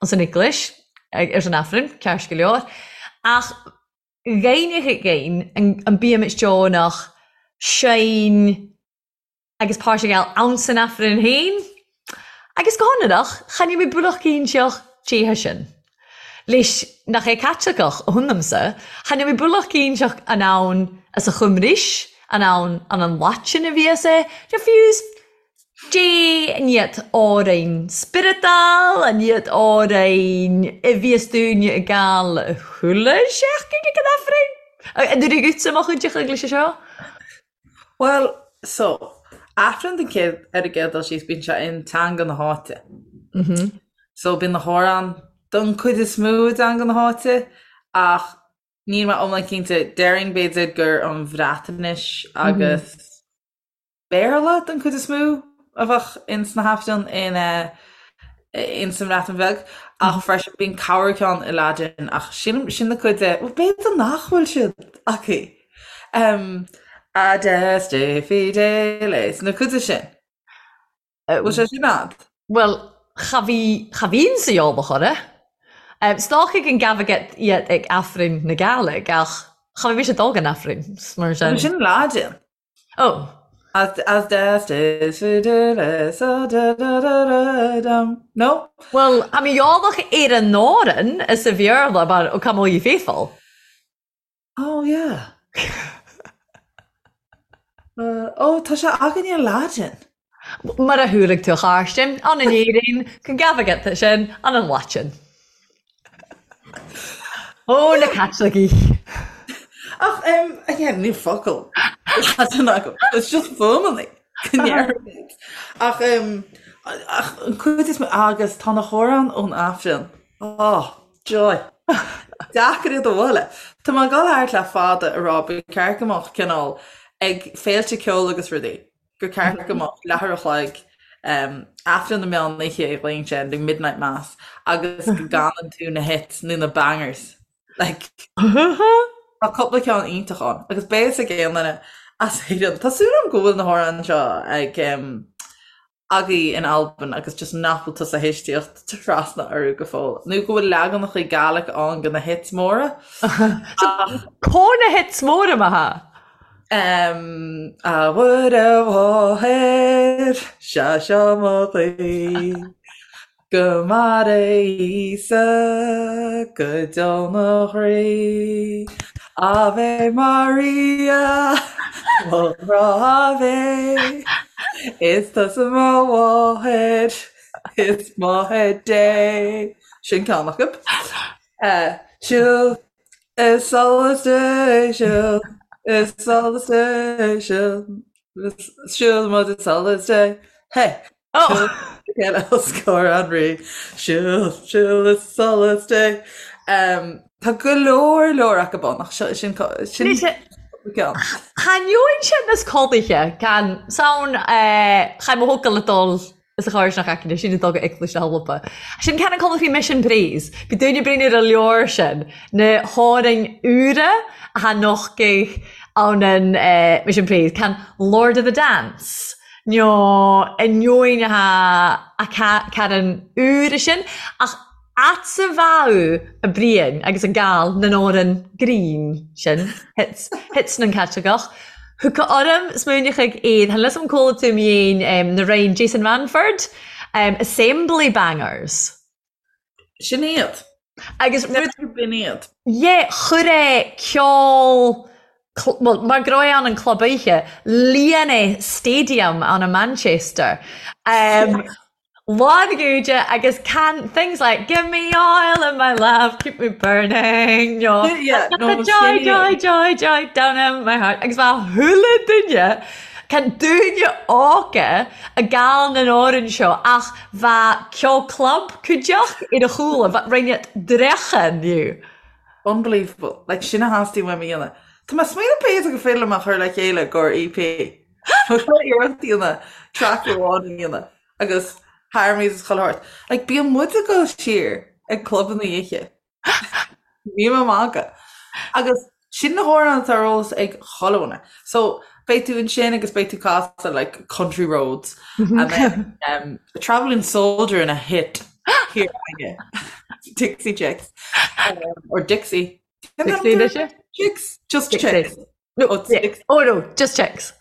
anns an eaglais, air son Aifreann, ceart go leor. Ach dh'aithneochadh againn an bímid deonach seinn agus páirt a ghabháil ann san Aifreann féin. Agus go hionrach, chan eil mi bualach cinnteach dè sin. Leis nach é Caitliceach a th'anamsa, chan eil mi bualach cinnteach an ann as a Chymrais, an ann an an Laitin a bhíos é, nó fiú dè an iad òrainn spioradal, an iad òrainn a bhíos daoine ag gabháil chuile sheachtain ag an Aifreann. An dtabharfaidh dhuitse mo chuid de leis seo? Bhuel, so, Aifreann den chéad, ar an gcéad dul síos, bíonn sé in teanga na háite. So, bíonn na hamhráin. don chuid is mó i dteanga na háite ach níl mé iomlán cinnte, déarfainn b'fhéidir gur an Bhreatnais agus Béarla don chuid is mó a bheadh ins na hAifrinn in ins an mBreatain Bheag ach freisin bíonn corr ceann i Laidin ach sin sin na cuid de, bhuel b'fhéidir nach bhfuil siad acu. Adeste fideles, na cuid de sin. Bhfuil sé sin a'd? Bhuel, cha bhí, cha bhíonn sa eolach orra. 'S dòchaidh gun gabhadh iad ag Aifrinn na Gàidhlig ach cha bhí mise ag dul gon Aifrinn, mar sin. Sin Laidin. Oh. Ad adestes fideles a-da-da-da-da-dum. No? Bhuel, tha mi eòlach air an òran as a Bheurla mar O Come All Ye Faithful. Oh yeah. Oh, tá sé againne i Laidin. Mar a chualaidh tú a Chàrstainn, ann in Éirinn, can gabhadh iad sin ann an Laitin. Ó, na Caitlicigh! Ach, em, again, níl focal Laidin agam. It's just fuaimeanna go ndéarfaimid. Ach, em, ach an cuid is mó, agus tá na hamhráin ón Aifreann. Oh, joy. Deacair iad a bhualadh. Tá mé ag dul thart le fada ag rá ba cheart go mbeadh cineál ag féilte ceoil agus rudaí, gur ceart go mbeadh leathuair a chloig Aifreann na meán oíche a ghlaonn sé, the midnight mass, agus go gcanann tú na hits nó na bangers. Like, tá cúpla ceann iontach ann agus beidh fhios ag aon duine as Éirinn. Tá súil agam go bhfuil na hamhráin seo ag agaibh in Albain agus just nach bhfuil tusa théis tíocht trasna orthu go fóill. Nó go bhfuil leaganacha Gaelic ann de na hits móra. Ach Có na hits móra mar tha? Em, a Mhuire Mháthair, sea seo mo ghuí, Go maire Íosa go deo mo chroí. Ave Maria, mo ghrá Ave, Is tusa mo mháthair, is máthair Dé. Sin ceann acu. Siúil is solas Dé, siúil is solas Dé, siúil, siúil muid is solas Dé. Hey! Oh! Chéile os comhair an Rí. Siúil, siúil is solas Dé. Tá go leor leor acu ann ach seo sin sin ceann. Thaitneoinn sin as codlaithe can sound cha mo thocal a dul is a chóir nach aice sin a dul go Eaglais na hAlba. Sin can an codladh faoi Mission Praise. Bhí daoine bréan ar an leabhar sin, na hArainn úra a tha nochtaidh ann an Mission Praise, can Lord of the Dance. Nó ainneoin a Karen úr sin, ach a'dsa bheadh a Briain agus a Gal nan òran grinn sin, hits, hits nan Caitliceach. Thug orm smaoineachadh iad, than lios am cuala tú mi fhèin na rainn Jason Manford, Assembly Bangers. Sin iad. Agus rud. B'in iad. Yeah, chuir é ceol, bhuel, mar go raibh ann an club oíche, líon é stadium ann i Manchester. Um, lán gúide agus can things like give me oil in my lamp, keep me burning, no, Yeah, no, joy, joy, joy, joy down in my heart. Agus bha chuile duine, can dúine óga a gal nan òran seo ach Bha ceol club cuideachd air a chúla, bha rinneadh dreachan dhiu. Unbelievable. Like, sin a theastaigh uaim a dhéanamh. Tá mé ag smaoineamh b'fhéidir gur féidir liom a chur le chéile i gcomhair EP. Tá mé iarracht a dhéanamh track amháin a dhéanamh agus harmonies is chuile shórt. Like, bíonn muid ag dul siar ag clubanna oíche. Níl mé ag magadh. Agus sin na hamhráin atá ar eolas ag chuile dhuine. So beidh tú ansin agus beidh tú casadh like Country Roads and then um, Travelling Soldier ina hit here againne. Dixie Chicks. Um, or Dixie. Dixie, is it? Chicks. Just Dixie. Chicks. No, Oh, yeah. Dixie. Oh no, just chicks.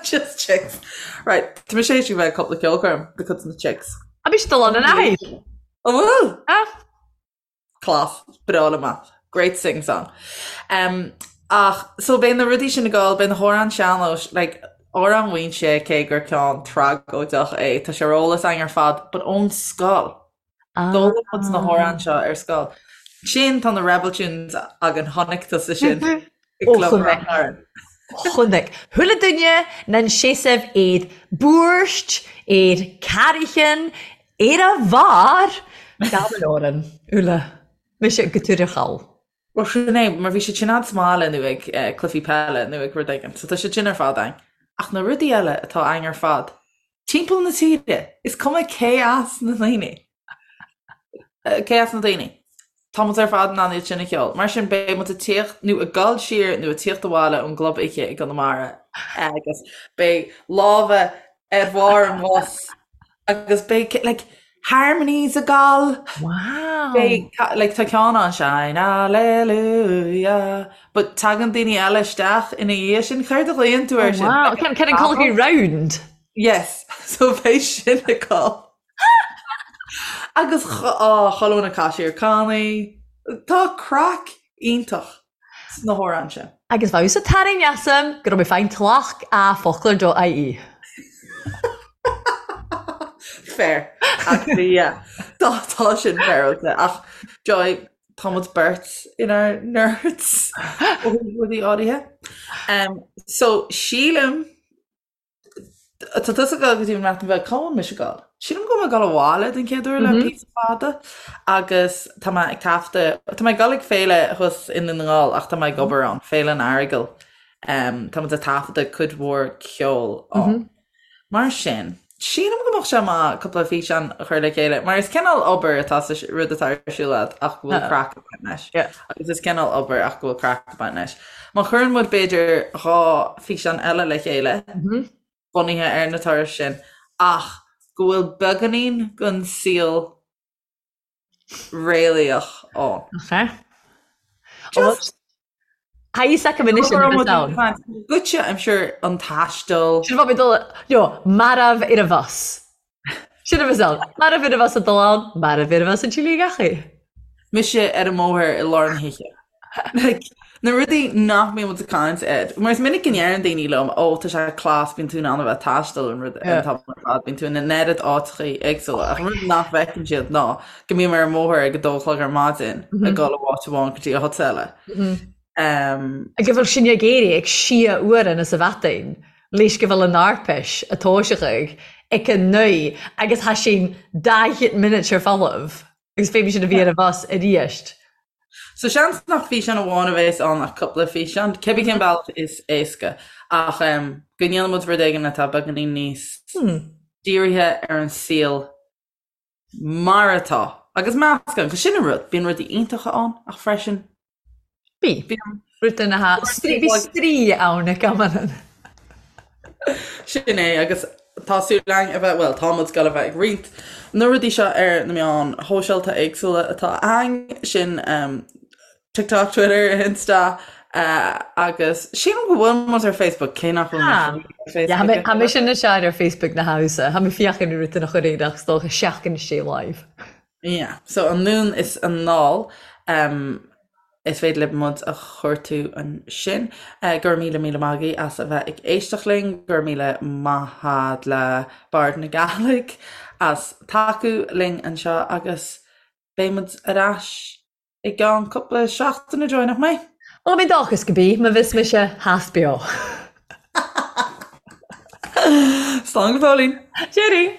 Just Chicks. Right, tá mé sé bheith cúpla ceolchoirm de chuid na Chicks. A bhí siad ann an aghaidh. An bhfuil? Ah. Class, breá liom é. Great sing song. Um, ach, so beidh na rudaí sin ag gabháil, beidh na hamhráin sean-nóis, like, Amhrán Mhaínse cé gur ceann tragóideach é, tá sé ar eolas againn ar fad, but ón scoil. Ah. D'fhoghlaim muid na hamhráin seo ar scoil. Sin tá na Rebel Tunes againn, chonaic tusa sin i Ó, gClub chonaic. Ráth Chairn. Chonaic. Chuile duine nan seasamh air búirt, air carraichean, ar a bharr! Gaman oran, Ula. Mise go tuarachal. Bhuel sin é, mar bhí siad sin a'd sa mbaile nó ag cluichí peile nó ag rud éigin, so tá siad sin ar fad a'inn. Ach na rudaí eile atá a'inn ar fad, timpeall na tíre, is cuma cé as na daoine, cé as na daoine, tá muid ar fad in ann iad sin a cheol. Mar sin beidh muid ag tíocht nó ag dul siar nó ag tíocht abhaile ón gclub oíche i gConamara agus beidh lámha ar bharr an bhus agus beidh like harmonies ag gabháil. Wow! Beidh like tá ceann ann shine hallelujah but tagann daoine eile isteach ina dhiaidh sin céard a ghlaonn tú air sin? Wow! Can can an call round? Yes, so beidh sin ag gabháil. Agus á chuile dhuine ag casadh ar cannaí. Tá craic iontach sna hamhráin sin. Agus bheadh sa tarraing asam go raibh mé féin tlacht a foclóir dot ie. Fair. Actually, yeah. Tá tá sin féaráilte. Ach Joy, tá muid beirt inár nerds ó thaobh rudaí áirithe. Um, so sílim Tá tusa ag dul go dtí an mBreatain Bheag, cá bhfuil mise ag dul? Sílim go bhfuil mé ag dul abhaile den chéad uair le píosa fada agus tá mé ag taifeadadh, tá mé ag dul ag féile thuas i nDún na nGall ach tá mé ag obair ann, Féile an Earagail. Tá muid ag taifeadadh cuid mhór ceoil ann. Mar sin, sílim go mbeadh sé maith cúpla físeán a chur le chéile mar is cineál obair atá sa rud atá ar siúl agat ach go bhfuil craic ag baint leis. Agus is cineál obair ach go bhfuil craic ag baint leis. Má chuireann muid b'fhéidir 2 físeán eile le chéile, bunaithe ar na turais sin, ach go bhfuil beagáinín den saol réalaíoch ann. Ok. Just. Tá fhios agam anois an rud ann. Goitse, I'm sure, an taisteal. Sin bhí dul, no, marbh ar an bhus. Sin a bheas ann. Marbh ar an bhus ag dul ann, marbh ar an bhus ag Chile gach. Mise ar an mbóthar i lár na hoíche. Like, na rudaí nach mbíonn muid ag caint air. Mar is minic go ndeireann daoine liom, ó, tá sé class, bíonn tú in ann a bheith ag taisteal an rud an t-am ar fad, bíonn tú in an oiread áiteachaí éagsúla. Ach an rud nach bhfeiceann siad ná go mbím ar an mbóthar ag a dó a chlog ar maidin ag dul ó áit amháin go dtí áit eile. Go bhfuil sinn ag éirí ag sia uair sa mhaidin leis go bhfuil an Arpais a toiseachaidh ag a naoi agus tha sinn 40 minute ar folamh agus feidhm sin a bhí ar an bhus arís. So seans nach físeán amháin a bheas ann ach cúpla físeán, cibé cén bealach is éasca ach go ndéanann muid rud éigin atá beagáinín níos dírithe ar an saol mar atá. Agus meascán, 'cause sin an rud, bíonn rudaí iontacha ann ach freisin Bí. bíonn Rud ina ha, bhí straoi ann ag amanna. Sin é, agus tá súil againn a bheith, bhuel, tá muid ag dul a bheith ag roinnt na rudaí seo ar na meáin shóisialta éagsúla atá againn, sin TikTok, Twitter, Insta, agus sílim go bhfuil muid ar Facebook, cé nach bhfuil mé ar Facebook. Tha mise na sear ar Facebook na hamsa, tha mi fiachan i rud a chur ach is dócha seachtain istigh live. Yeah, so anonn is anall, is féidir libh muid a chuartú ansin. Go raibh míle míle maith agaibh as a bheith ag éisteacht linn, go raibh míle maith a'd le Bard na Gàidhlig as tacú linn anseo agus beidh muid ar ais I gceann cúpla seachtain, Joy, nach mbeidh? Bhuel, mi dòchas gu bi, ma bhios mise thas beo. Slán go fóillín! Cheerio!